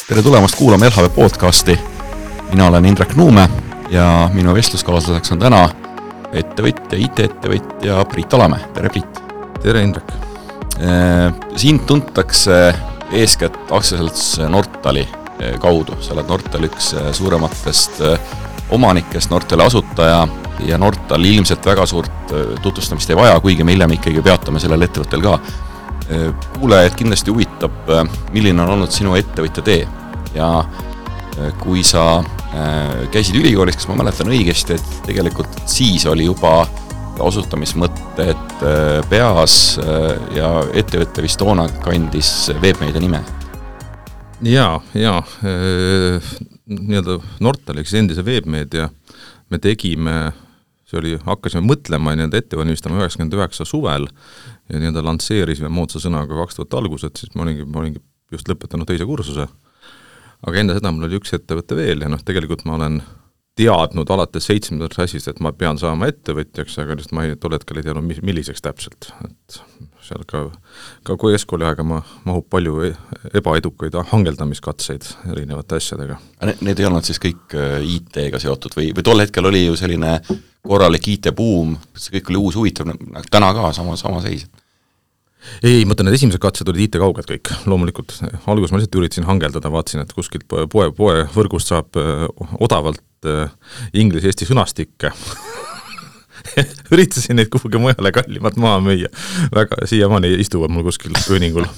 Tere tulemast kuulama LHV podcasti. Mina olen Indrek Nuume ja minu vestluskaaslaseks on täna ettevõtja, IT-ettevõtja Priit Alamäe. Tere Priit. Tere Indrek. Sind tuntakse eeskätt aktsiaselts Nortali kaudu. Sa oled Nortali üks suurematest omanikest, Nortali asutaja ja Nortal ilmselt väga suurt tutvustamist ei vaja, kuigi me hiljem ikkagi peatame sellel ettevõttel ka. Kuulajad kindlasti huvitab, milline on olnud sinu ettevõtja tee ja kui sa käisid ülikoolis, kas ma mäletan õigesti, et tegelikult siis oli juba asutamismõtted peas ja ettevõtte vist toona kandis Webmedia nime. Nii-öelda Nortaliks endise Webmedia me tegime, hakkasime mõtlema ja ettevalmistama 99 suvel ja nii-öelda lansseerisime moodsa sõnaga 2000 algused, siis ma olingi just lõpetanud teise kursuse. Aga enne seda mul oli üks ettevõte veel ja tegelikult ma olen teadnud alates 7. klassist, et ma pean saama ettevõtjaks, aga just ma tol hetkel ei teadnud, milliseks täpselt. Et seal ka keskkooli aega mahub palju ebaedukaid hangeldamiskatseid erinevate asjadega. Need ei olnud siis kõik IT-ga seotud või tol hetkel oli ju selline korralik IT-buum, see kõik oli uus huvitav, täna ka sama seis? Ei, mõtlen, et esimesed katsed olid IT-kauged kõik, loomulikult. Alguses ma lihtsalt üritasin hangeldada, vaatasin, et kuskilt poe võrgust saab odavalt inglise-eesti sõnastikke. Üritasin neid kuhugi mujale kallimalt maha müüa. Väga siiamaani istuvad mul kuskil pööningul.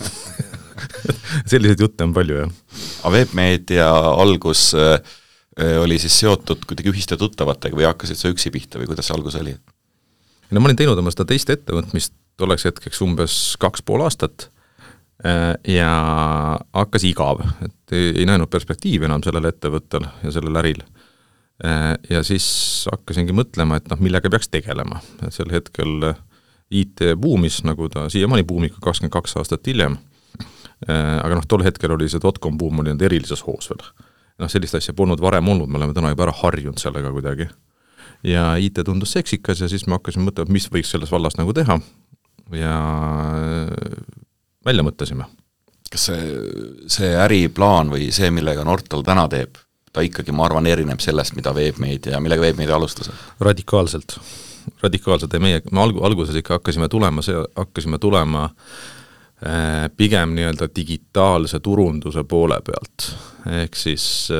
Selliseid jutte on palju, jah. Webmedia algus oli siis seotud kuidagi ühiste tuttavatega või hakkasid sa üksi pihta või kuidas see algus oli? No ma olin teinud oma seda teist ettevõtmist tolleks hetkeks umbes 2,5 aastat ja hakkas igav, et ei näinud perspektiivi enam sellel ettevõttel ja sellel äril. Ja siis hakkasingi mõtlema, et millega peaks tegelema. Et sel hetkel IT buumis, nagu ta siiamaani buumika 22 aastat hiljem, aga tol hetkel oli see .com buum oli erilises hoos veel. Sellist asja polnud varem olnud, me oleme täna juba ära harjunud sellega kuidagi. Ja IT tundus seksikas ja siis me hakkasime mõtlema, mis võiks selles vallas nagu teha ja välja mõtlesime. Kas see äriplaan või see, millega Nortal täna teeb, ta ikkagi, ma arvan, erineb sellest, millega Webmedia alustas? Radikaalselt ja me alguses ikka hakkasime tulema pigem nii-öelda digitaalse turunduse poole pealt. Ehk siis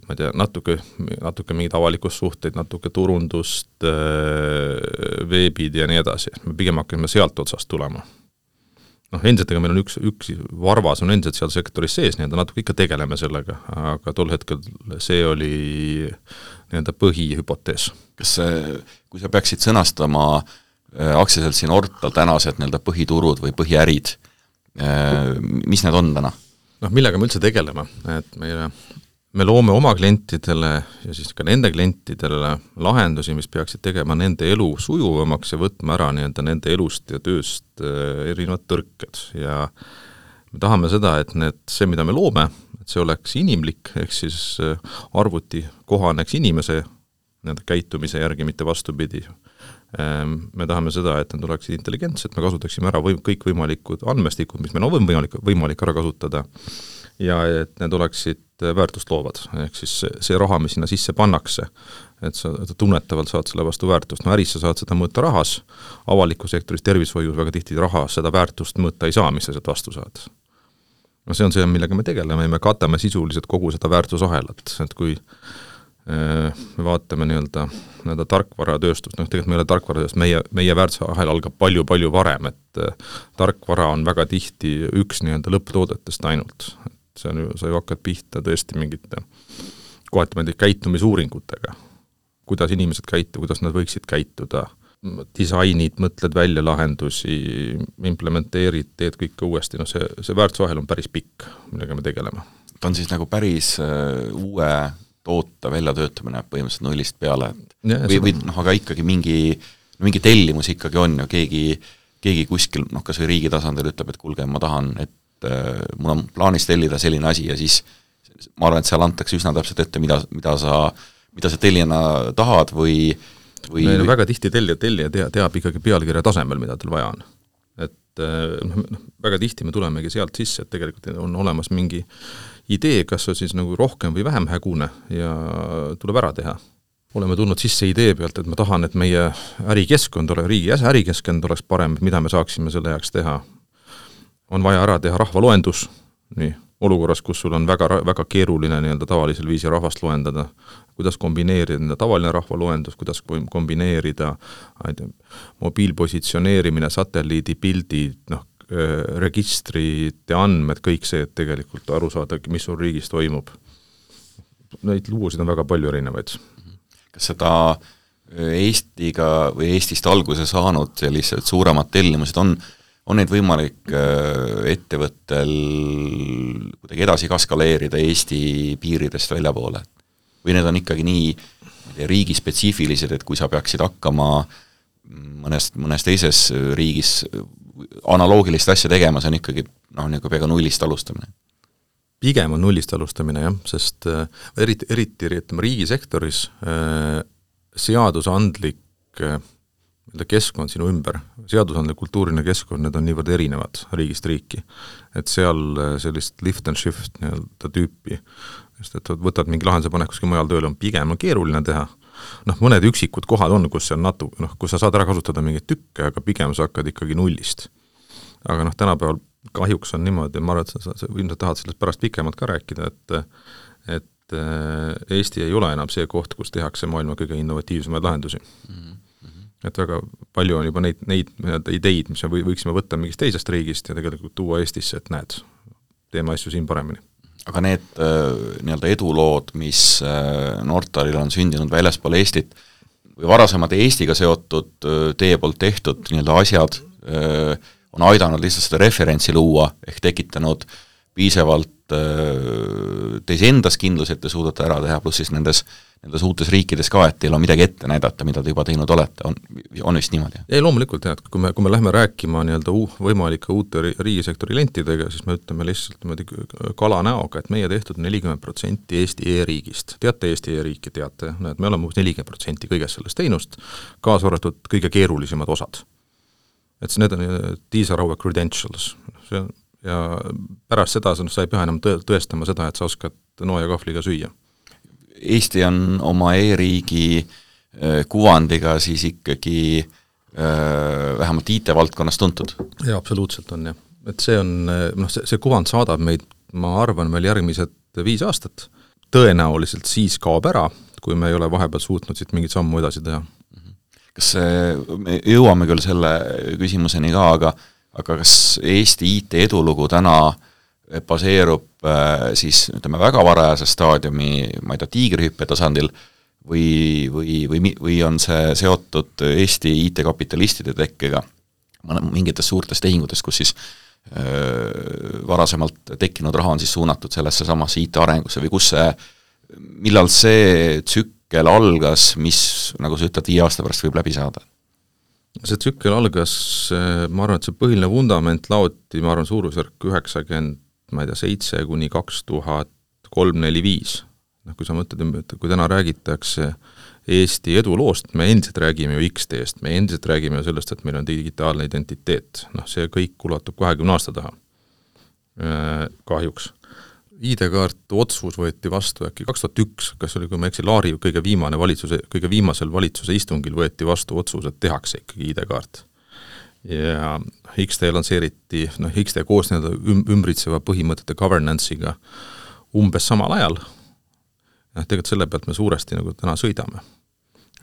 ma ei tea, natuke mingid avalikussuhteid, natuke turundust, veebid ja nii edasi. Me pigem hakkame sealt otsast tulema. Endiselt, meil on üks varvas on endiselt seal sektoris sees, natuke ikka tegeleme sellega, aga tol hetkel see oli põhihüpotees. Kas kui sa peaksid sõnastama aktsiaseltsi Nortal tänased põhiturud või põhiärid, mis need on täna? Millega me üldse tegeleme? Et me loome oma klientidele ja siis ka nende klientidele lahendusi, mis peaksid tegema nende elu sujuvamaks ja võtma ära nende elust ja tööst erinevad tõrked. Ja me tahame seda, et see, mida me loome, et see oleks inimlik, ehk siis arvuti kohaneks inimese käitumise järgi, mitte vastupidi. Me tahame seda, et need oleksid intelligentsed, me kasutaksime ära kõik võimalikud andmestikud, mis meil on võimalik ära kasutada ja et need oleksid väärtust loovad. Ehk siis see raha, mis sinna sisse pannakse, et sa tunnetavalt saad selle vastu väärtust. Äris sa saad seda mõõta rahas, avaliku sektoris tervishoius väga tihti rahas seda väärtust mõõta ei saa, mis sa sealt vastu saad. See on see, millega me tegeleme ja me katame sisuliselt kogu seda väärtusahelat. Et kui me vaatame nii-öelda tarkvaratööstust, tegelikult meil tarkvaratööst, meie väärtusahel algab palju varem, et tarkvara on väga tihti üks nii-öelda lõpptoodetest ainult. Sa ju hakkad pihta tõesti mingite kohati käitumisuuringutega, kuidas inimesed käituvad, kuidas nad võiksid käituda, disainid, mõtled välja lahendusi, implementeerid, teed kõike uuesti, see väärtusahel on päris pikk, millega me tegeleme. Ta on siis nagu päris uue toota väljatöötamine põhimõtteliselt nullist peale, aga ikkagi mingi tellimus ikkagi on ja keegi kuskil, kas või riigi tasandil ütleb, et kuulge, ma tahan, et mul on plaanis tellida selline asi ja siis ma arvan, et seal antakse üsna täpselt ette, mida sa tellijana tahad või väga tihti tellija teab ikkagi pealkirja tasemel, mida tal vaja on. Et väga tihti me tulemegi sealt sisse, et tegelikult on olemas mingi idee, kas on siis nagu rohkem või vähem hägune ja tuleb ära teha. Oleme tulnud sisse idee pealt, et ma tahan, et meie ärikeskkond ole, riigi ärikeskkond oleks parem, mida me saaksime selle heaks teha. On vaja ära teha rahvaloendus, nii, olukorras, kus sul on väga keeruline nii-öelda tavalisel viisi rahvast loendada, kuidas kombineerida tavaline rahvaloendus, kuidas kombineerida mobiilpositsioneerimine, satelliidipildid, registrite andmed, kõik see, et tegelikult aru saada, mis sul riigis toimub. Neid lugusid on väga palju erinevaid. Kas seda Eestiga või Eestist alguse saanud sellised suuremad tellimused on neid võimalik ettevõttel kuidagi edasi kaskaleerida Eesti piiridest väljapoole? Või need on ikkagi nii riigispetsiifilised, et kui sa peaksid hakkama mõnes teises riigis analoogilist asja tegema, see on ikkagi peaaegu nullist alustamine? Pigem on nullist alustamine, jah, sest eriti riigisektoris seadusandlik keskkond sinu ümber, seadusandlik kultuuriline keskkond, need on niivõrd erinevad riigist riiki, et seal sellist lift and shift tüüpi, sest et võtad mingi lahenduse panek kuskil mujal tööle, on pigem keeruline teha. Mõned üksikud kohad on, kus kus sa saad ära kasutada mingeid tükke, aga pigem sa hakkad ikkagi nullist. Aga tänapäeval kahjuks on niimoodi, ma arvan, et sa ilmselt tahad sellest pärast pikemalt ka rääkida, et Eesti ei ole enam see koht, kus tehakse maailma kõige innovatiivsemaid lahendusi. Et väga palju on juba neid ideid, mis me võiksime võtta mingist teisest riigist ja tegelikult tuua Eestisse, et näed, teeme asju siin paremini. Aga need edulood, mis Nortalil on sündinud väljaspool Eestit või varasemad Eestiga seotud teie poolt tehtud asjad on aidanud lihtsalt seda referentsi luua ehk tekitanud piisavalt teis endas kindlus, et te suudate ära teha, pluss siis nendes uutes riikides ka, et teil on midagi ette näidata, mida te juba teinud olete, on vist niimoodi? Ei, loomulikult, et kui me lähme rääkima võimalike uute riigisektori lentidega, siis me ütleme lihtsalt kala näoga, et meie tehtud 40% Eesti e-riigist. Teate Eesti e-riiki, teate, et me oleme 40% kõigest sellest teinust, kaasa arvatud kõige keerulisemad osad. Et need on, these are our credentials. Ja pärast seda sa ei pea enam tõestama seda, et sa oskad noa ja kahvliga süüa. Eesti on oma e-riigi kuvandiga siis ikkagi vähemalt IT-valdkonnas tuntud. Jaa, absoluutselt on, jah. Et see on, see kuvand saadab meid, ma arvan, meil järgmised 5 aastat. Tõenäoliselt siis kaob ära, kui me ei ole vahepeal suutnud siit mingit sammu edasi teha. Kas me jõuame küll selle küsimuseni ka, aga kas Eesti IT edulugu täna baseerub siis väga varajase staadiumi, ma ei tea, tiigrihüppe tasandil või on see seotud Eesti IT-kapitalistide tekkega mingites suurtes tehingutes, kus siis varasemalt tekkinud raha on siis suunatud sellesse samasse IT-arengusse või millal see tsükkel algas, mis, nagu sa ütled, 5 aasta pärast võib läbi saada? See tsükkel algas, ma arvan, et see põhiline vundament laoti, ma arvan, suurusjärk 97 kuni 2003-2005. Kui sa mõtled, kui täna räägitakse Eesti eduloost, me endiselt räägime ju X-teest, me endiselt räägime ju sellest, et meil on digitaalne identiteet. See kõik ulatub 20 aasta taha. Kahjuks. ID-kaart otsus võeti vastu äkki 2001, kas oli, kui ma eksi, Laari kõige viimasel valitsuse istungil võeti vastu otsus, et tehakse ikkagi ID-kaart. Ja XT lansseeriti, XT koos ümbritseva põhimõtete governance'iga umbes samal ajal. Tegelikult selle pealt me suuresti täna sõidame.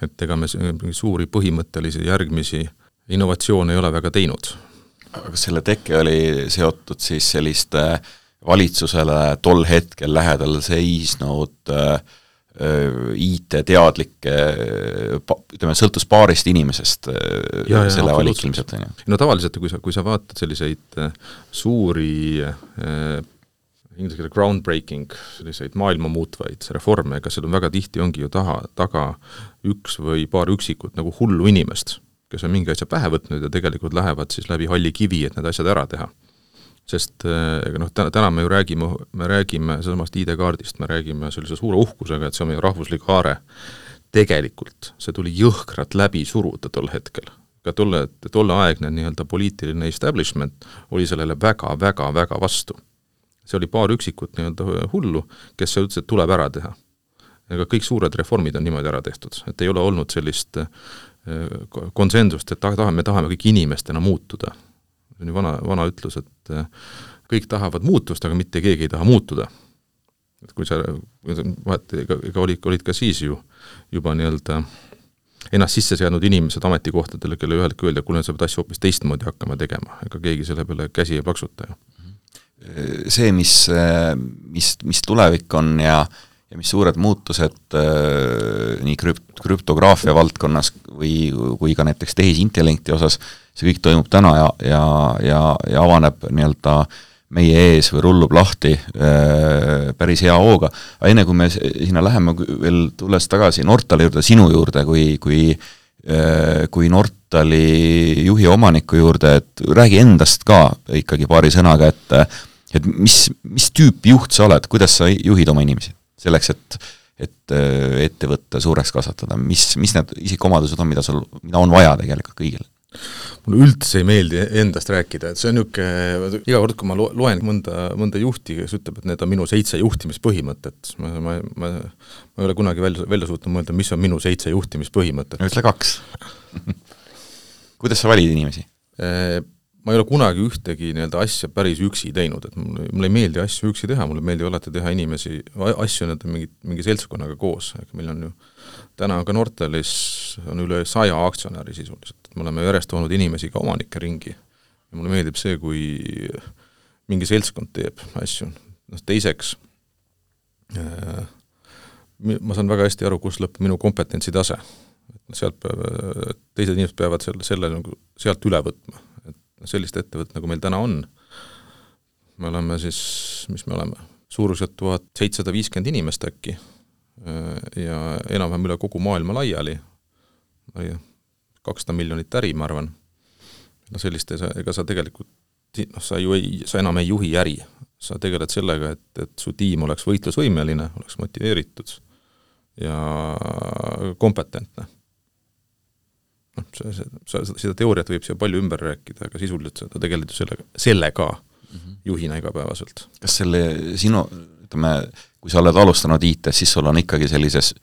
Et ega me suuri põhimõttelisi järgmisi innovatsioone ei ole väga teinud. Aga selle tekke oli seotud siis selliste valitsusele tol hetkel lähedal seisnud IT-teadlikke, sõltus paarist inimesest selle valik ilmselt. Tavaliselt, kui sa vaatad selliseid suuri inglise keele groundbreaking, selliseid maailma muutvaid reforme, ega seal on väga tihti ongi ju taga üks või paar üksikut hullu inimest, kes on mingi asja pähe võtnud ja tegelikult lähevad siis läbi halli kivi, et need asjad ära teha. Sest täna me ju räägime samast ID-kaardist, me räägime sellise suure uhkusega, et see on meie rahvuslik haare. Tegelikult see tuli jõhkrat läbi suruda tol hetkel. ka tolleaegne nii-öelda poliitiline establishment oli sellele väga vastu. See oli paar üksikut nii-öelda hullu, kes ütles, et tuleb ära teha. Ega kõik suured reformid on niimoodi ära tehtud, et ei ole olnud sellist konsensust, et me tahame kõik inimestena muutuda. See on ju vana ütlus, et kõik tahavad muutust, aga mitte keegi ei taha muutuda. Et kui sa ega olid ka siis juba nii-öelda ennast sisse seadnud inimesed ametikohtadele, kelle ühel öelda, kuule sa pead asju hoopis teistmoodi hakkama tegema, ega keegi selle peale käsi ei plaksuta. See, mis tulevik on ja mis suured muutused nii krüptograafia valdkonnas kui ka näiteks tehisintellekti osas, see kõik toimub täna ja avaneb nii-öelda meie ees või rullub lahti päris hea hooga. Aga enne kui me sinna läheme veel tulles tagasi Nortali juurde, sinu juurde, kui Nortali juhi omaniku juurde, et räägi endast ka ikkagi paari sõnaga, et mis tüüp juht sa oled, kuidas sa juhid oma inimesi selleks, et ettevõtte suureks kasvatada, mis need isikuomadused on, mida on vaja tegelikult kõigile? Mulle üldse ei meeldi endast rääkida, et see on iga kord, kui ma loen mõnda juhti, kes ütleb, et need on minu 7 juhtimispõhimõtet, ma ei ole kunagi välja suutnud mõelda, mis on minu 7 juhtimispõhimõtet. Ütle 2. Kuidas sa valid inimesi? Ma ei ole kunagi ühtegi nii-öelda asja päris üksi teinud, et mulle ei meeldi asju üksi teha, mulle meeldi alati teha asju mingi seltskonnaga koos. Meil on ju, täna on ka Nortalis on üle 100 aktsionäri sisuliselt. Me oleme järjest olnud inimesi ka omanike ringi. Ja mulle meeldib see, kui mingi seltskond teeb asju. Teiseks, ma saan väga hästi aru, kus lõpeb minu kompetentsi tase. Teised inimesed peavad selle sealt üle võtma. Sellist ettevõtt, nagu meil täna on. Me oleme siis, mis me oleme, suuruselt 1750 inimest äkki ja enam-vähem üle kogu maailma laiali. 200 miljonit äri, ma arvan. Sellist, ega sa tegelikult, sa enam ei juhi äri. Sa tegeled sellega, et su tiim oleks võitlusvõimeline, oleks motiveeritud ja kompetentne. Seda teooriat võib siia palju ümber rääkida, aga sisuliselt seda tegelikult sellega juhina igapäevaselt. Kas sinu, kui sa oled alustanud IT-s, siis sul on ikkagi sellises,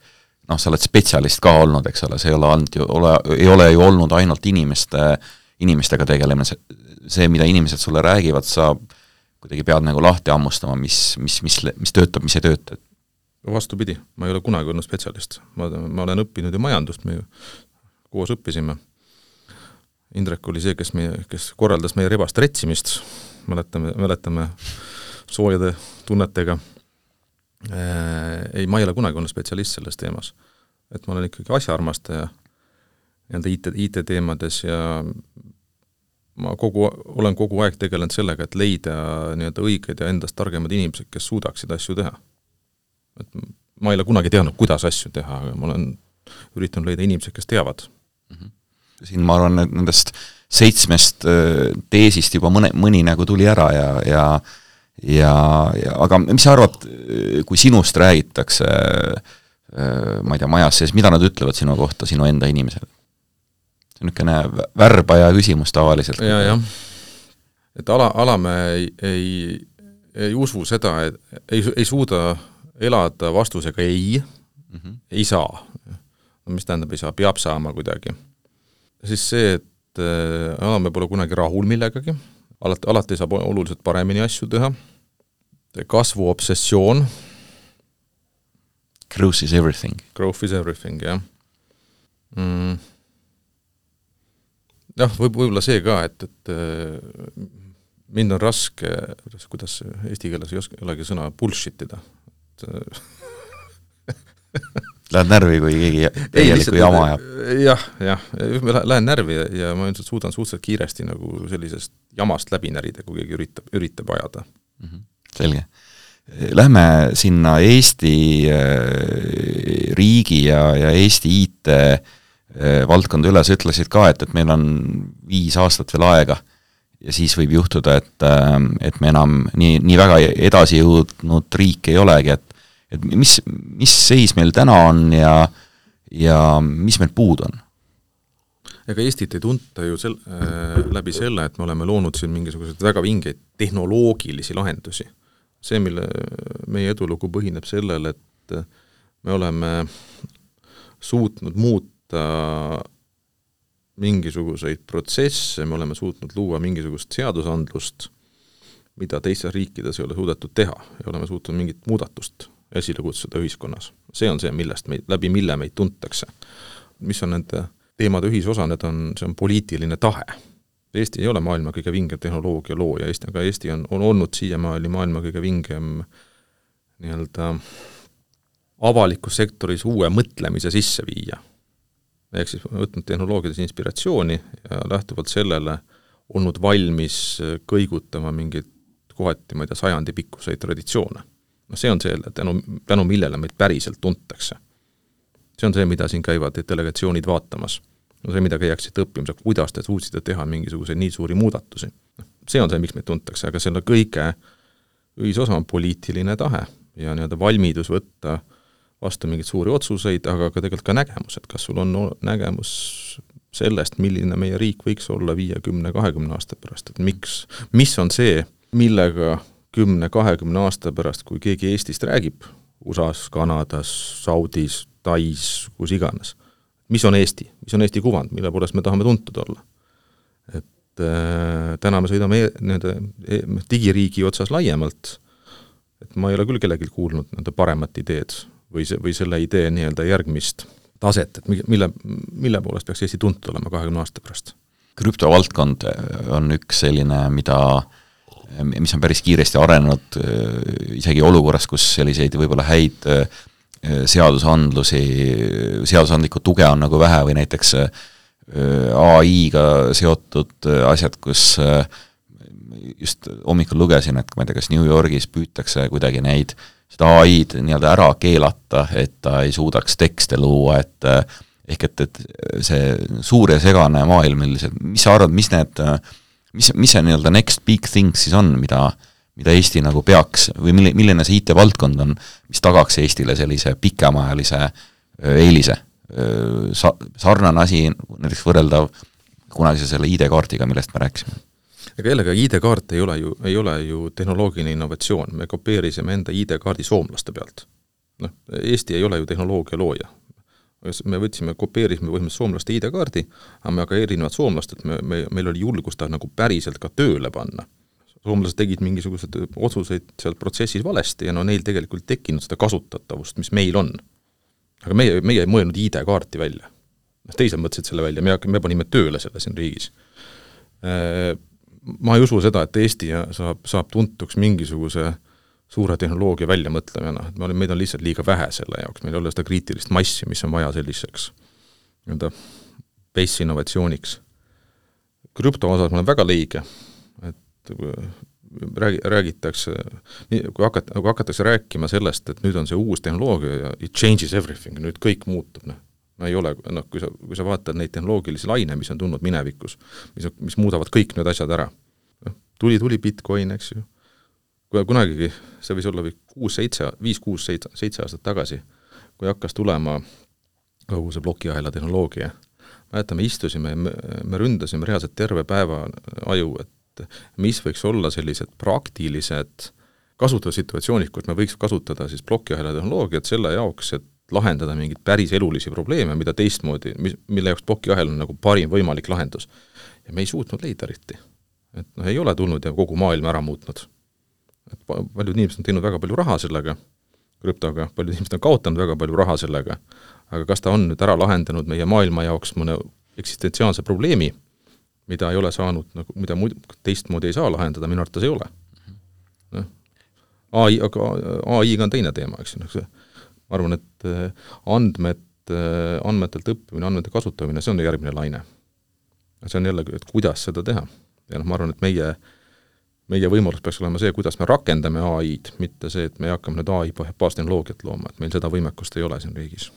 sa oled spetsialist ka olnud, eks ole, see ei ole ju olnud ainult inimestega tegelemine, see, mida inimesed sulle räägivad, sa kuidagi pead nagu lahti ammustama, mis töötab, mis ei tööta. Vastupidi, ma ei ole kunagi olnud spetsialist. Ma olen õppinud ju majandust, me koos õppisime. Indrek oli see, kes korraldas meie rebast retsimist, mäletame soojade tunnetega. Ma ei ole kunagi olnud spetsialist selles teemas. Et ma olen ikkagi asjaarmastaja IT-teemades ja ma olen kogu aeg tegelenud sellega, et leida õiged ja endast targemad inimesed, kes suudaksid asju teha. Et ma ei ole kunagi teadnud, kuidas asju teha, aga ma olen üritanud leida inimesed, kes teavad. Siin ma arvan, et nendest 7 teesist juba mõni nagu tuli ära aga mis sa arvad, kui sinust räägitakse, ma ei tea, majas sees, mida nad ütlevad sinu kohta, sinu enda inimesed? See on niisugune värbaja küsimus tavaliselt. Ja. Et alame ei usu seda, et ei suuda elada vastusega ei saa. Mis tähendab, ei saa, peab saama kuidagi. Siis see, et alame pole kunagi rahul millegagi, alati saab oluliselt paremini asju teha, kasvu obsessioon. Growth is everything. Growth is everything, jah. Jah, võib-olla see ka, et mind on raske, kuidas eesti keeles ei olegi sõna bullshitida. Lähed närvi, kui keegi tegelikult jama ajab? Jah, lähen närvi ja ma ilmselt suudan suhteliselt kiiresti nagu sellisest jamast läbi närida, kui keegi üritab ajada. Selge. Lähme sinna Eesti riigi ja Eesti IT valdkonda üle, sa ütlesid ka, et meil on 5 aastat veel aega ja siis võib juhtuda, et me enam nii väga edasi jõudnud riik ei olegi, et mis seis meil täna on ja mis meil puud on? ega Eestit ei tunta ju läbi selle, et me oleme loonud siin mingisuguseid väga vingeid tehnoloogilisi lahendusi. See, mille meie edulugu põhineb sellel, et me oleme suutnud muuta mingisuguseid protsesse, me oleme suutnud luua mingisugust seadusandlust, mida teistes riikides ei ole suudetud teha, ja oleme suutnud mingit muudatust esile kutsuda ühiskonnas. See on see, läbi mille meid tuntakse. Mis on nende teemade ühisosa, see on poliitiline tahe. Eesti ei ole maailma kõige vingem tehnoloogia looja, aga Eesti on olnud siiamaani maailma kõige vingem nii-öelda avalikus sektoris uue mõtlemise sisse viia. Ehk siis võtnud tehnoloogiades inspiratsiooni ja lähtuvalt sellele olnud valmis kõigutama mingit kohati, ma ei tea, 100 pikkuseid traditsioone. No see on see, tänu millele meid päriselt tuntakse. See on see, mida siin käivad delegatsioonid vaatamas. No see, mida käiaksid õppimas, kuidas te suutsite teha mingisuguseid nii suuri muudatusi. See on see, miks meid tuntakse, aga selle kõige ühisosa on poliitiline tahe ja nii-öelda valmidus võtta vastu mingeid suuri otsuseid, aga ka tegelikult ka nägemus, et kas sul on nägemus sellest, milline meie riik võiks olla 50-20 aasta pärast, et mis on see, millega 10-20 aasta pärast, kui keegi Eestist räägib, USA-s, Kanadas, Saudis, Tais, kus iganes, mis on Eesti kuvand, mille poolest me tahame tuntud olla. Et täna me sõidame digiriigi otsas laiemalt, et ma ei ole küll kellelgi kuulnud nende paremat ideed või selle idee nii-öelda järgmist taset, et mille poolest peaks Eesti tuntud olema 20 aasta pärast. Krüptovaldkond on üks selline, mis on päris kiiresti arenenud isegi olukorras, kus selliseid võib-olla häid seadusandlikku tuge on nagu vähe või näiteks AI-ga seotud asjad, kus just hommikul lugesin, et ma ei tea, kas New Yorgis püütakse kuidagi seda AI-d nii-öelda ära keelata, et ta ei suudaks tekste luua, et see suur ja segane maailm, mis sa arvad, mis see nii-öelda next big thing siis on, mida Eesti nagu peaks, või milline see IT-valdkond on, mis tagaks Eestile sellise pikemaajalise eelise? Sarnane asi, näiteks võrreldav kunagi selle ID-kaardiga, millest me rääkisime. Aga jällegi ID-kaart ei ole ju tehnoloogiline innovatsioon, me kopeerisime enda ID-kaardi soomlaste pealt. Eesti ei ole ju tehnoloogia looja. Me kopeerisime põhimõtteliselt soomlaste ID-kaardi, aga ka erinevad soomlased, meil oli julgust ta nagu päriselt ka tööle panna. Soomlased tegid mingisugused otsuseid seal protsessis valesti ja neil tegelikult tekkinud seda kasutatavust, mis meil on. Aga meie ei mõelnud ID-kaarti välja. Teised mõtlesid selle välja, me panime tööle selle siin riigis. Ma ei usu seda, et Eesti saab tuntuks mingisuguse suure tehnoloogia väljamõtlemine, et meid on lihtsalt liiga vähe selle jaoks, meil ei ole seda kriitilist massi, mis on vaja selliseks base innovatsiooniks. Krüpto osas ma olen väga leige, et räägitakse, kui hakatakse rääkima sellest, et nüüd on see uus tehnoloogia ja it changes everything, nüüd kõik muutub, ei ole, kui sa vaatad neid tehnoloogilisi laine, mis on tulnud minevikus, mis muudavad kõik need asjad ära. Tuli Bitcoin, eks ju. Kunagigi, see võis olla 5-6-7 aastat tagasi, kui hakkas tulema kogu see plokiahela tehnoloogia. Me istusime, me ründasime reaalselt terve päeva aju, et mis võiks olla sellised praktilised kasutussituatsioonid, kus me võiks kasutada siis plokiahela tehnoloogiat selle jaoks, et lahendada mingid päris elulisi probleeme, mida teistmoodi, mille jaoks plokiahel on nagu parim võimalik lahendus. Ja me ei suutnud leida eriti. Et ei ole tulnud ja kogu maailma ära muutnud. Et paljud inimesed on teinud väga palju raha sellega, krüptoga, paljud inimesed on kaotanud väga palju raha sellega, aga kas ta on nüüd ära lahendanud meie maailma jaoks mõne eksistentsiaalse probleemi, mida ei ole saanud, mida teistmoodi ei saa lahendada, minu arvates ei ole. AI-ga on teine teema, eks. Ma arvan, et andmetelt õppimine, andmete kasutamine, see on järgmine laine. See on jälle, et kuidas seda teha. Ja ma arvan, et meie võimalus peaks olema see, kuidas me rakendame AI-d, mitte see, et me hakkame nüüd AI baastehnoloogiat looma, et meil seda võimekust ei ole siin riigis.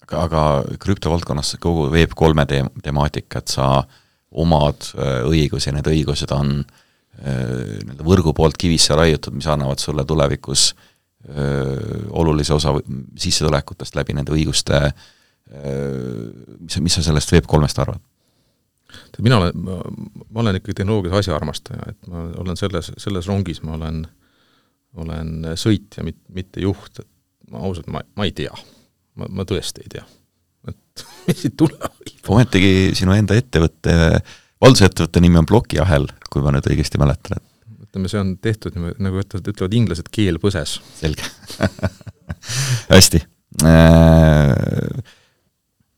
Aga krüptovaldkonnas kogu Web3 temaatika, et sa omad õigusi ja need õigused on võrgu poolt kivisse raiutud, mis annavad sulle tulevikus olulise osa sissetulekutest läbi nende õiguste, mis sa sellest Web3-st arvad? ma olen ikkagi tehnoloogias asjaarmastaja, et ma olen selles rongis, ma olen sõitja, mitte juht, et ma ausalt, ma ei tea. Ma tõesti ei tea. Et mis siit tuleb? Ometigi sinu enda ettevõtte, valdusettevõtte nimi on Plokiahel, kui ma nüüd õigesti mäletan. Ütleme, see on tehtud, nagu ütlevad inglased, keel põses. Selge. Hästi.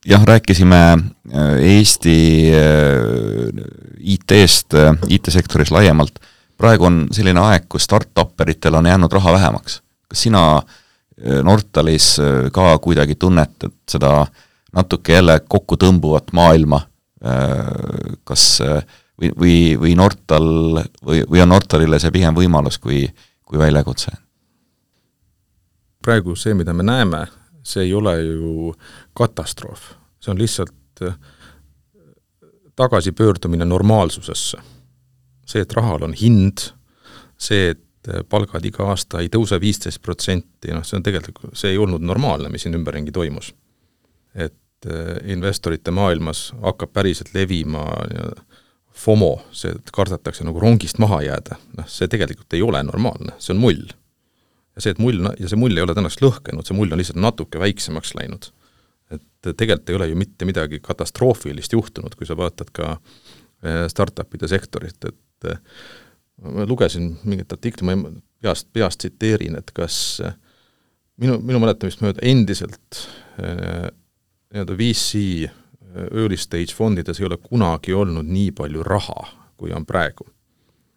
Jah, rääkisime Eesti IT-st, IT-sektoris laiemalt. Praegu on selline aeg, kus start-upperitel on jäänud raha vähemaks. Kas sina Nortalis ka kuidagi tunnetad seda natuke jälle kokku tõmbuvat maailma, kas või Nortal või on Nortalile see pigem võimalus kui väljakutse? Praegu see, mida me näeme, see ei ole ju katastroof. See on lihtsalt tagasipöördumine normaalsusesse. See, et rahal on hind, see, et palgad iga aasta ei tõuse 15%, see on tegelikult, see ei olnud normaalne, mis siin ümberringi toimus. Et investorite maailmas hakkab päriselt levima FOMO, see, et kardetakse nagu rongist maha jääda. See tegelikult ei ole normaalne, see on mull. Ja see mull ei ole tänaks lõhkenud, see mull on lihtsalt natuke väiksemaks läinud. Et tegelikult ei ole ju mitte midagi katastroofilist juhtunud, kui sa vaatad ka startupide sektorit, et ma lugesin mingit artikli, ma peast tsiteerin, et kas minu mäletamist mööda endiselt VC early stage fondides ei ole kunagi olnud nii palju raha, kui on praegu.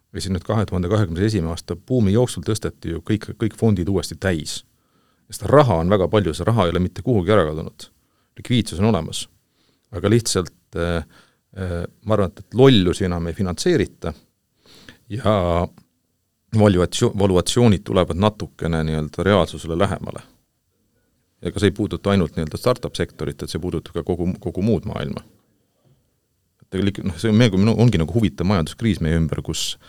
Või siin nüüd 2021. aasta buumi jooksul tõsteti ju kõik fondid uuesti täis. Ja seda raha on väga palju, see raha ei ole mitte kuhugi ära kadunud. Likviidsus on olemas. Aga lihtsalt ma arvan, et lollusi enam ei finantseerita ja valuatsioonid tulevad natukene nii-öelda reaalsusele lähemale. Ja ka see ei puuduta ainult nii-öelda startup-sektorit, et see puudutab ka kogu muud maailma. Tegelikult, see ongi nagu huvitav majanduskriis meie ümber, kus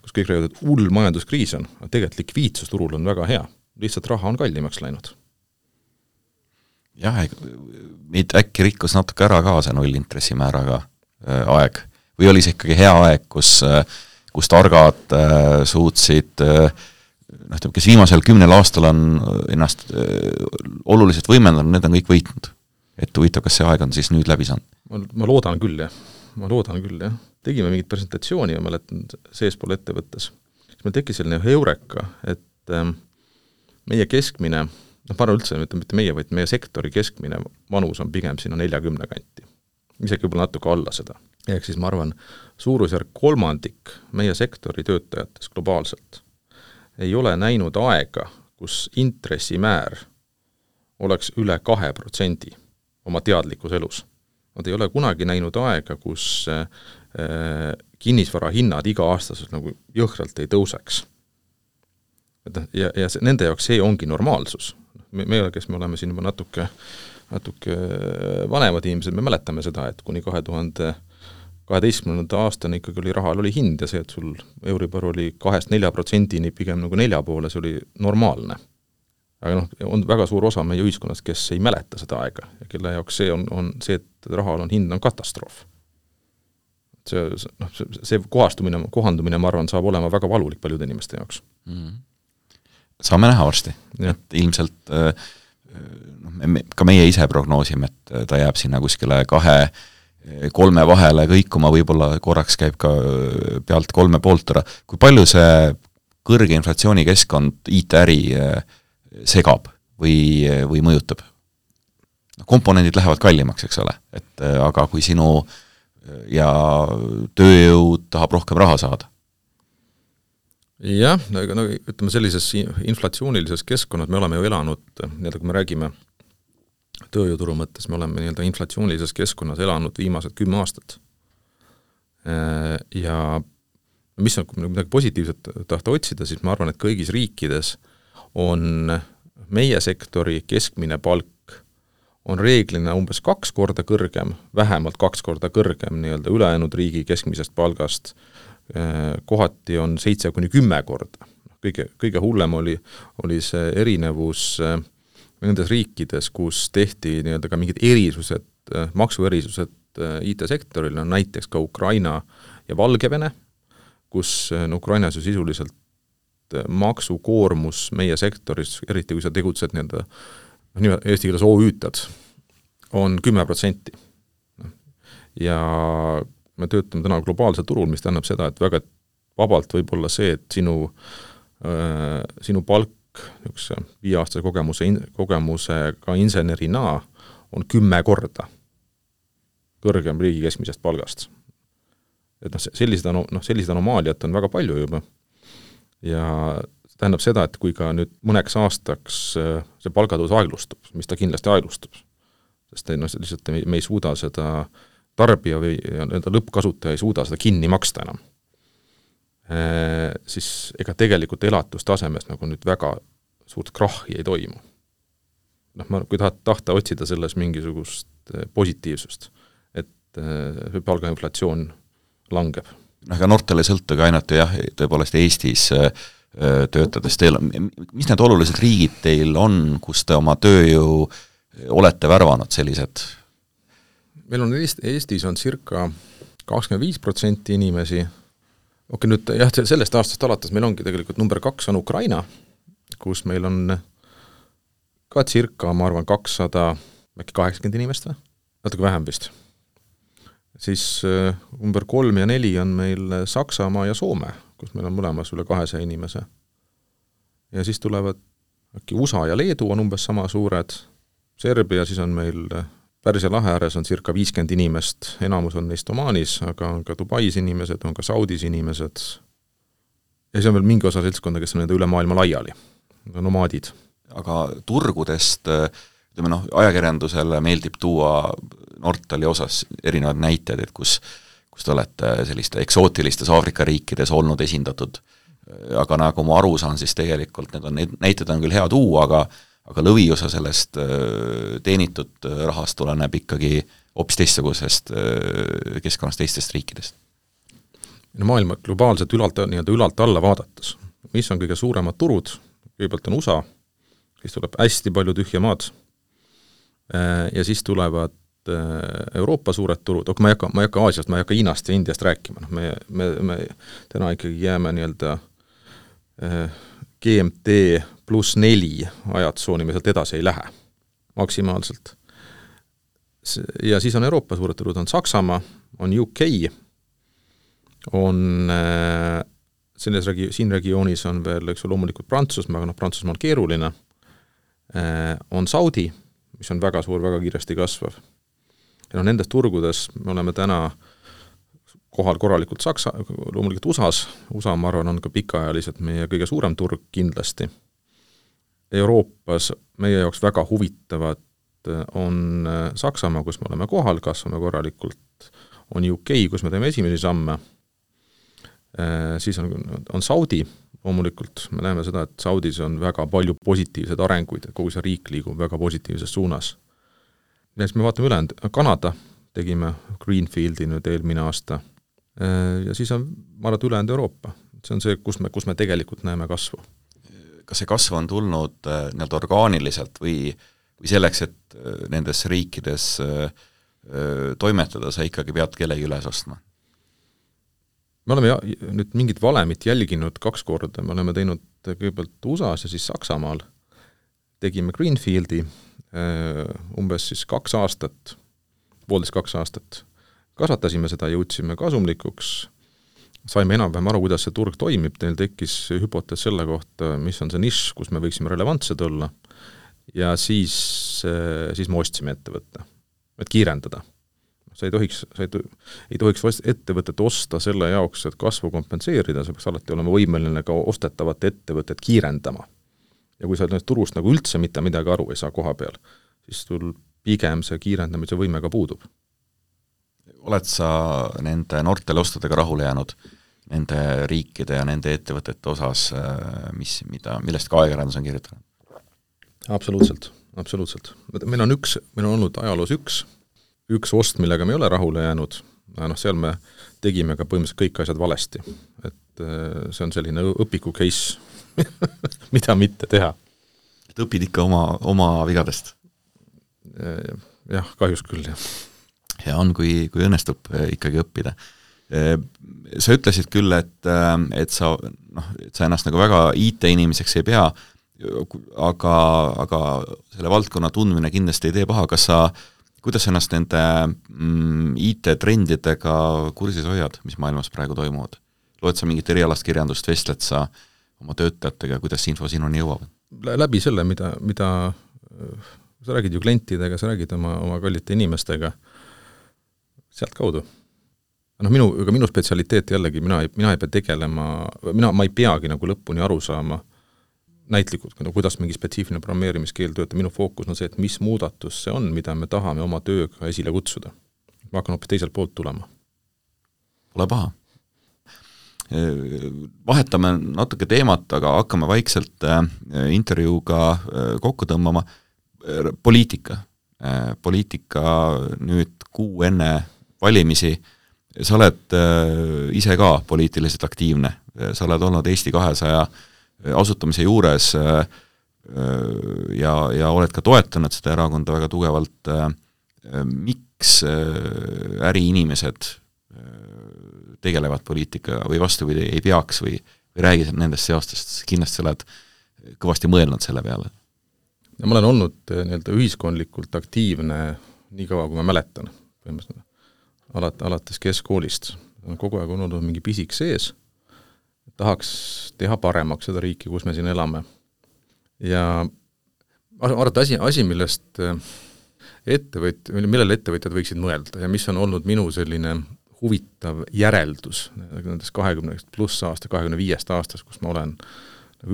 kõik räägivad, et hull majanduskriis on, aga tegelikult likviidsusturul on väga hea. Lihtsalt raha on kallimaks läinud. Jah, meid äkki rikkus natuke ära ka see nullintressimääraga aeg. Või oli see ikkagi hea aeg, kus targad suutsid, kes viimasel 10 aastal on ennast oluliselt võimendanud, need on kõik võitnud. Et huvitav, kas see aeg on siis nüüd läbi saanud? Ma loodan küll, jah. Tegime mingit presentatsiooni, ma mäletan seespool ettevõttes. Meil tekkis selline heureka, et meie keskmine, ma arvan üldse, mitte meie, vaid meie sektori keskmine vanus on pigem sinna 40 kanti. Isegi võib-olla natuke alla seda. Ehk siis ma arvan, suurusjärk 3% meie sektori töötajates globaalselt ei ole näinud aega, kus intressimäär oleks üle 2% oma teadlikus elus. Nad ei ole kunagi näinud aega, kus kinnisvara hinnad iga aastaselt nagu jõhkralt ei tõuseks. Ja nende jaoks see ongi normaalsus. Me oleme siin juba natuke vanemad inimesed, me mäletame seda, et kuni 2012. aastani ikkagi oli rahal oli hind ja see, et sul Euribor oli 2-4% pigem nagu 4 poole, see oli normaalne. Aga on väga suur osa meie ühiskonnast, kes ei mäleta seda aega ja kelle jaoks see on see, et rahal on hind on katastroof. See kohandumine, ma arvan, saab olema väga valulik paljude inimeste jaoks. Saame näha varsti. Et ilmselt ka meie ise prognoosime, et ta jääb sinna kuskile 2-3 vahele kõikuma, võib-olla korraks käib ka pealt 3,5 ära. Kui palju see kõrge inflatsiooni keskkond IT-äri segab või mõjutab? Komponendid lähevad kallimaks, eks ole, aga kui sinu ja tööjõud tahab rohkem raha saada? Jah, ütleme sellises inflatsioonilises keskkonnas me oleme ju elanud, kui me räägime tööjõuturu mõttes, me oleme inflatsioonilises keskkonnas elanud viimased 10 aastat. Ja mis on, kui midagi positiivset tahta otsida, siis ma arvan, et kõigis riikides on meie sektori keskmine palk on reeglina umbes 2 korda kõrgem, vähemalt 2 korda kõrgem ülejäänud riigi keskmisest palgast, kohati on 7-10 korda. Kõige hullem oli see erinevus nendes riikides, kus tehti ka mingid erisused, maksuerisused IT-sektoril on näiteks ka Ukraina ja Valgevene, kus Ukrainas ju sisuliselt maksukoormus meie sektoris, eriti kui sa tegutsed nii-öelda eesti keeles OÜ-tad, on 10%. Ja me töötame täna globaalsel turul, mis tähendab seda, et väga vabalt võib olla see, et sinu palk 5-aastase kogemusega insenerina on 10 korda kõrgem riigi keskmisest palgast. Et sellised anomaaliat on väga palju juba. Ja tähendab seda, et kui ka nüüd mõneks aastaks see palgatõus aeglustub, mis ta kindlasti aeglustub, sest lihtsalt me ei suuda seda tarbija või lõppkasutaja ei suuda seda kinni maksta enam, siis ega tegelikult elatustasemest nagu nüüd väga suurt krahhi ei toimu. Kui tahta otsida selles mingisugust positiivsust, et palgainflatsioon langeb. Aga Nortal ei sõltugi ainult jah, tõepoolest Eestis töötades teil, mis need olulised riigid teil on, kus te oma tööjõu olete värvanud sellised? Meil on Eestis on circa 25% inimesi. Okei, nüüd jah, sellest aastast alates meil ongi tegelikult number 2 on Ukraina, kus meil on ka circa, ma arvan, 200, äkki 80 inimest või? Natuke vähem vist. Siis number 3 ja 4 on meil Saksamaa ja Soome, kus meil on mõlemas üle 200 inimese. Ja siis tulevad äkki USA ja Leedu on umbes sama suured, Serbia siis on meil Pärsia lahe ääres on circa 50 inimest, enamus on neist Omaanis, aga on ka Dubais inimesed, on ka Saudis inimesed. Ja see on veel mingi osa seltskonda, kes on nende üle maailma laiali, nomaadid. Aga turgudest, ajakirjandusele meeldib tuua Nortali osas erinevad näited, et kus te olete selliste eksootilistes Aafrika riikides olnud esindatud. Aga nagu ma aru saan, siis tegelikult need näited on küll hea tuua, aga lõviosa sellest teenitud rahast tuleneb ikkagi hoopis teistsugusest keskkonnast teistest riikidest. Maailma globaalselt ülalt alla vaadates, mis on kõige suuremad turud, kõigepealt on USA, siis tuleb hästi palju tühja maad ja siis tulevad Euroopa suured turud, ma ei hakka Aasiast, ma ei hakka Hiinast ja Indiast rääkima, me täna ikkagi jääme nii-öelda GMT +4 ajatsooni, me sealt edasi ei lähe maksimaalselt. Ja siis on Euroopa suured turud, on Saksamaa, on UK, on siin regioonis on veel loomulikult Prantsusmaa, aga Prantsusmaa on keeruline, on Saudi, mis on väga suur, väga kiiresti kasvav. Ja nendes turgudes me oleme täna kohal korralikult loomulikult USA, ma arvan, on ka pikaajaliselt meie kõige suurem turg kindlasti. Euroopas meie jaoks väga huvitavad on Saksamaa, kus me oleme kohal, kasvame korralikult, on UK, kus me teeme esimesi samme, siis on Saudi, loomulikult me näeme seda, et Saudis on väga palju positiivseid arenguid, et kogu see riik liigub väga positiivses suunas. Ja siis me vaatame ülejäänud, Kanada tegime Greenfieldi nüüd eelmine aasta ja siis on marad ülejäänud Euroopa. See on see, kus me tegelikult näeme kasvu. Kas see kasv on tulnud orgaaniliselt või selleks, et nendes riikides toimetada, sa ikkagi pead kellegi üles ostma? Me oleme nüüd mingit valemit jälginud 2 korda, me oleme teinud kõigepealt USAs ja siis Saksamaal, tegime Greenfieldi umbes siis 2 aastat, 1,5–2 aastat, kasvatasime seda, jõudsime kasumlikuks, saime enam-vähem aru, kuidas see turg toimib, neil tekkis hüpotees selle kohta, mis on see nišš, kus me võiksime relevantsed olla, ja siis me ostsime ettevõtte, et kiirendada. Sa ei tohiks ettevõtet osta selle jaoks, et kasvu kompenseerida, see peaks alati olema võimeline ka ostetavat ettevõtet kiirendama. Ja kui sa turust nagu üldse mitte midagi aru ei saa koha peal, siis sul pigem see kiirendamise võime ka puudub. Oled sa nende Nortali ostudega rahule jäänud nende riikide ja nende ettevõtete osas, millest ka ajakirjandus on kirjutanud? Absoluutselt. Meil on olnud ajaloos üks ost, millega me ei ole rahule jäänud, seal me tegime ka põhimõtteliselt kõik asjad valesti. Et see on selline õpiku case, mida mitte teha. Et õpid ikka oma vigadest? Jah, kahjuks küll, jah. hea on, kui õnnestub ikkagi õppida. Sa ütlesid küll, et sa ennast nagu väga IT-inimeseks ei pea, aga selle valdkonna tundmine kindlasti ei tee paha. Kuidas sa ennast nende IT-trendidega kursis hoiad, mis maailmas praegu toimuvad? Loed sa mingit erialast kirjandust, vestled sa oma töötajatega, kuidas info sinuni jõuab? Läbi selle, mida sa räägid ju klientidega, sa räägid oma kallite inimestega, sealt kaudu. Minu spetsialiteet jällegi, mina ei pea tegelema, ma ei peagi nagu lõpuni aru saama näitlikult, kuidas mingi spetsiifiline programmeerimiskeel töötab. Minu fookus on see, et mis muudatus see on, mida me tahame oma tööga esile kutsuda. Ma hakkan hoopis teiselt poolt tulema. Pole paha. Vahetame natuke teemat, aga hakkame vaikselt intervjuuga kokku tõmbama. Poliitika nüüd kuu enne valimisi. Sa oled ise ka poliitiliselt aktiivne. Sa oled olnud Eesti 200 asutamise juures ja oled ka toetanud seda erakonda väga tugevalt. Miks äriinimesed tegelevad poliitikaga või vastupidi ei peaks või räägi nendest seostest, kindlasti sa oled kõvasti mõelnud selle peale? Ma olen olnud ühiskondlikult aktiivne nii kaua, kui ma mäletan. Alates keskkoolist. Kogu aeg on olnud mingi pisik sees. Tahaks teha paremaks seda riiki, kus me siin elame. Ja arvata asi, millest millele ettevõtjad võiksid mõelda ja mis on olnud minu selline huvitav järeldus nendest 20 pluss aasta, 25 aastast, kus ma olen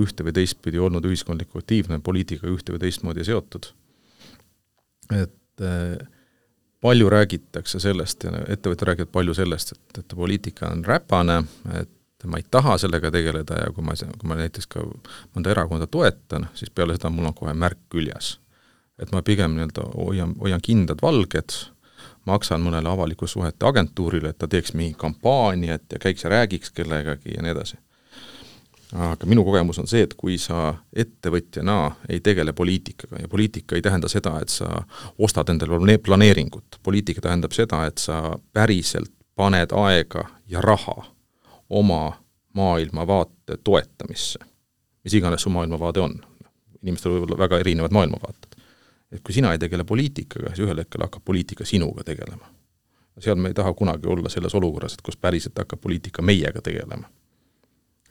ühte või teistpidi olnud ühiskondliku aktiivne, poliitika ühte või teistmoodi seotud. Et palju räägitakse sellest ja ettevõtjad räägivad palju sellest, et poliitika on räpane, et ma ei taha sellega tegeleda ja kui ma näiteks ka mõnda erakonda toetan, siis peale seda mul on kohe märk küljes. Et ma pigem hoian kindad valged, maksan mõnele avaliku suhete agentuurile, et ta teeks mingi kampaaniat ja käiks ja räägiks kellegagi ja nii edasi. Aga minu kogemus on see, et kui sa ettevõtjana ei tegele poliitikaga ja poliitika ei tähenda seda, et sa ostad endale planeeringut. Poliitika tähendab seda, et sa päriselt paned aega ja raha oma maailmavaate toetamisse. Mis iganes su maailmavaade on. Inimestel võib olla väga erinevad maailmavaated. Et kui sina ei tegele poliitikaga, siis ühel hetkel hakkab poliitika sinuga tegelema. Seal me ei taha kunagi olla selles olukorras, et kus päriselt hakkab poliitika meiega tegelema.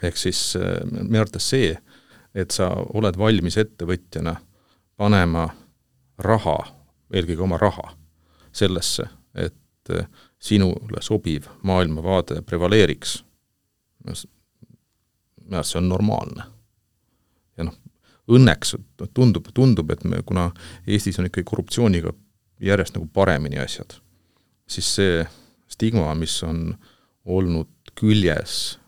Ehk siis me arvates see, et sa oled valmis ettevõtjana panema raha, eelkõige oma raha, sellesse, et sinule sobiv maailmavaade prevaleeriks. See on normaalne. Ja õnneks tundub, et kuna Eestis on ikkagi korruptsiooniga järjest nagu paremini asjad, siis see stigma, mis on olnud küljes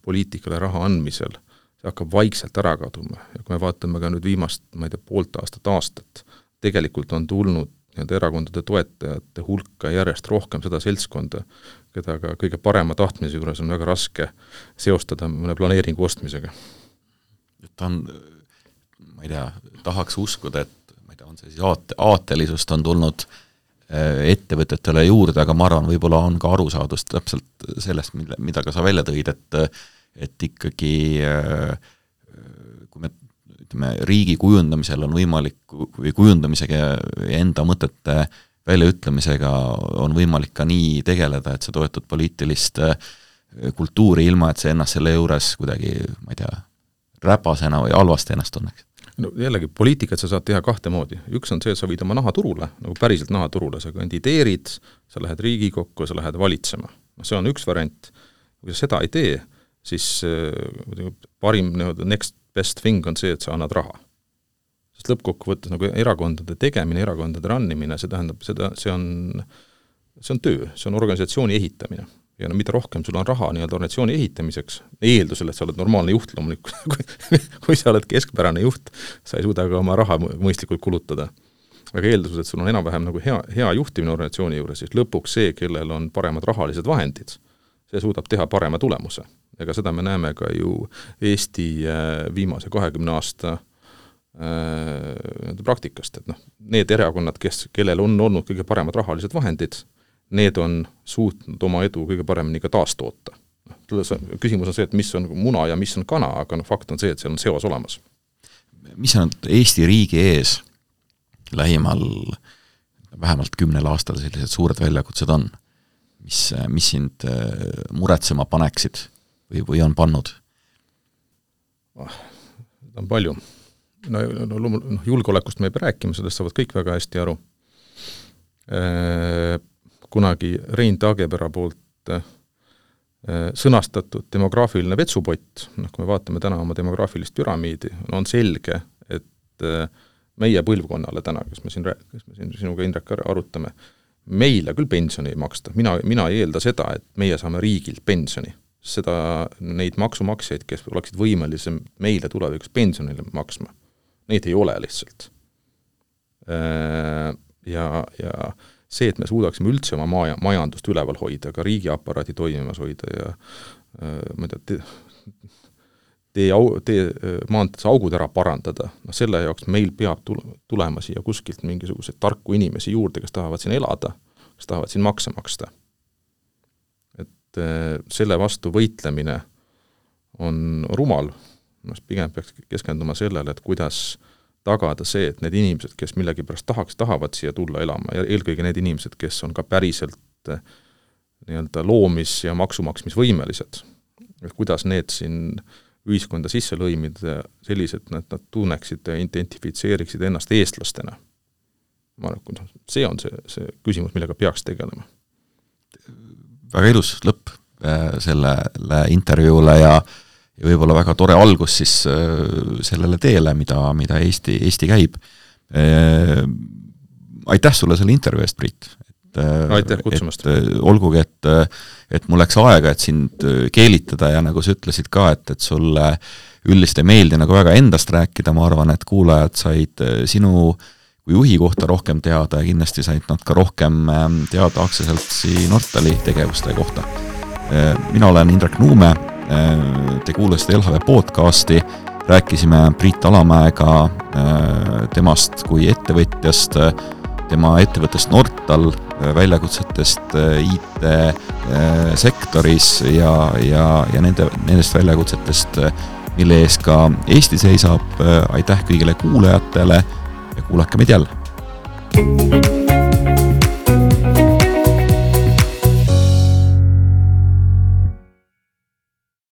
poliitikale raha andmisel, see hakkab vaikselt ära kaduma. Ja kui me vaatame ka nüüd viimast, poolt aastat, tegelikult on tulnud erakondade toetajate hulka järjest rohkem seda seltskonda, keda ka kõige parema tahtmise juures on väga raske seostada mõne planeeringu ostmisega. Ta on, tahaks uskuda, et on see siis aatelisust on tulnud ettevõtetele juurde, aga ma arvan, võib-olla on ka arusaadust täpselt sellest, mida ka sa välja tõid, et ikkagi kui me ütleme, riigi kujundamisel on võimalik, või kujundamisega ja enda mõtete väljaütlemisega on võimalik ka nii tegeleda, et sa toetud poliitilist kultuuri ilma, et see ennast selle juures kuidagi, räpasena või halvasti ennast tunneks. No jällegi, poliitikat sa saad teha kahte moodi. Üks on see, et sa võid oma naha turule, nagu päriselt naha turule, sa kandideerid, sa lähed Riigikokku, sa lähed valitsema. See on üks variant. Kui sa seda ei tee, siis parim next best thing on see, et sa annad raha. Sest lõppkokkuvõttes nagu erakondade tegemine, erakondade rannimine, see tähendab, see on töö, see on organisatsiooni ehitamine. Ja mida rohkem sul on raha organisatsiooni ehitamiseks, eeldusel, et sa oled normaalne juht loomulikult, kui sa oled keskpärane juht, sa ei suuda ka oma raha mõistlikult kulutada. Aga eeldusel, et sul on enam-vähem nagu hea juhtimine organisatsiooni juures, siis lõpuks see, kellel on paremad rahalised vahendid, see suudab teha parema tulemuse. Ega seda me näeme ka ju Eesti viimase 20 aasta praktikast, et need erakonnad, kellel on olnud kõige paremad rahalised vahendid, need on suutnud oma edu kõige paremini ka taastoota. Küsimus on see, et mis on muna ja mis on kana, aga fakt on see, et seal on seos olemas. Mis on Eesti riigi ees lähimal vähemalt 10 aastal sellised suured väljakutsed on? Mis sind muretsema paneksid või on pannud? Seda on palju. Julgeolekust me ei pea rääkima, sellest saavad kõik väga hästi aru. Kunagi Rein Taagepera poolt sõnastatud demograafiline vetsupott, kui me vaatame täna oma demograafilist püramiidi, on selge, et meie põlvkonnale täna, kes me siin sinuga Indrek arutame, meile küll pensioni ei maksta. Mina ei eelda seda, et meie saame riigilt pensioni. Neid maksumaksjaid, kes oleksid võimelisem meile tulevikus pensionile maksma, neid ei ole lihtsalt. Ja see, et me suudaksime üldse oma majandust üleval hoida, ka riigiaparaadi toimimas hoida ja ma ei tea, maantedes augud ära parandada, selle jaoks meil peab tulema siia kuskilt mingisuguseid tarku inimesi juurde, kes tahavad siin elada, kes tahavad siin makse maksta. Et selle vastu võitlemine on rumal, pigem peaks keskenduma sellele, et kuidas tagada see, et need inimesed, kes millegipärast tahavad siia tulla elama, ja eelkõige need inimesed, kes on ka päriselt loomis- ja maksumaksmisvõimelised, et kuidas need siin ühiskonda sisse lõimida sellised, et nad tunneksid ja identifitseeriksid ennast eestlastena. Ma arvan, see on see küsimus, millega peaks tegelema. Väga ilus lõpp sellele intervjuule ja võib-olla väga tore algus siis sellele teele, mida Eesti käib. Aitäh sulle selle intervjuu eest, Priit. Aitäh kutsumast. Olgugi, et mul läks aega, et sind keelitada ja nagu sa ütlesid ka, et sulle üldiselt ei meeldi nagu väga endast rääkida, ma arvan, et kuulajad said sinu kui juhi kohta rohkem teada ja kindlasti said nad ka rohkem teada aktsiaseltsi Nortali tegevuste kohta. Mina olen Indrek Nuume, te kuulasite LHV podcasti, rääkisime Priit Alamäega temast kui ettevõtjast, tema ettevõttest Nortal, väljakutsetest IT-sektoris ja nendest väljakutsetest, mille ees ka Eesti seisab. Aitäh kõigile kuulajatele ja kuulake meid jälle!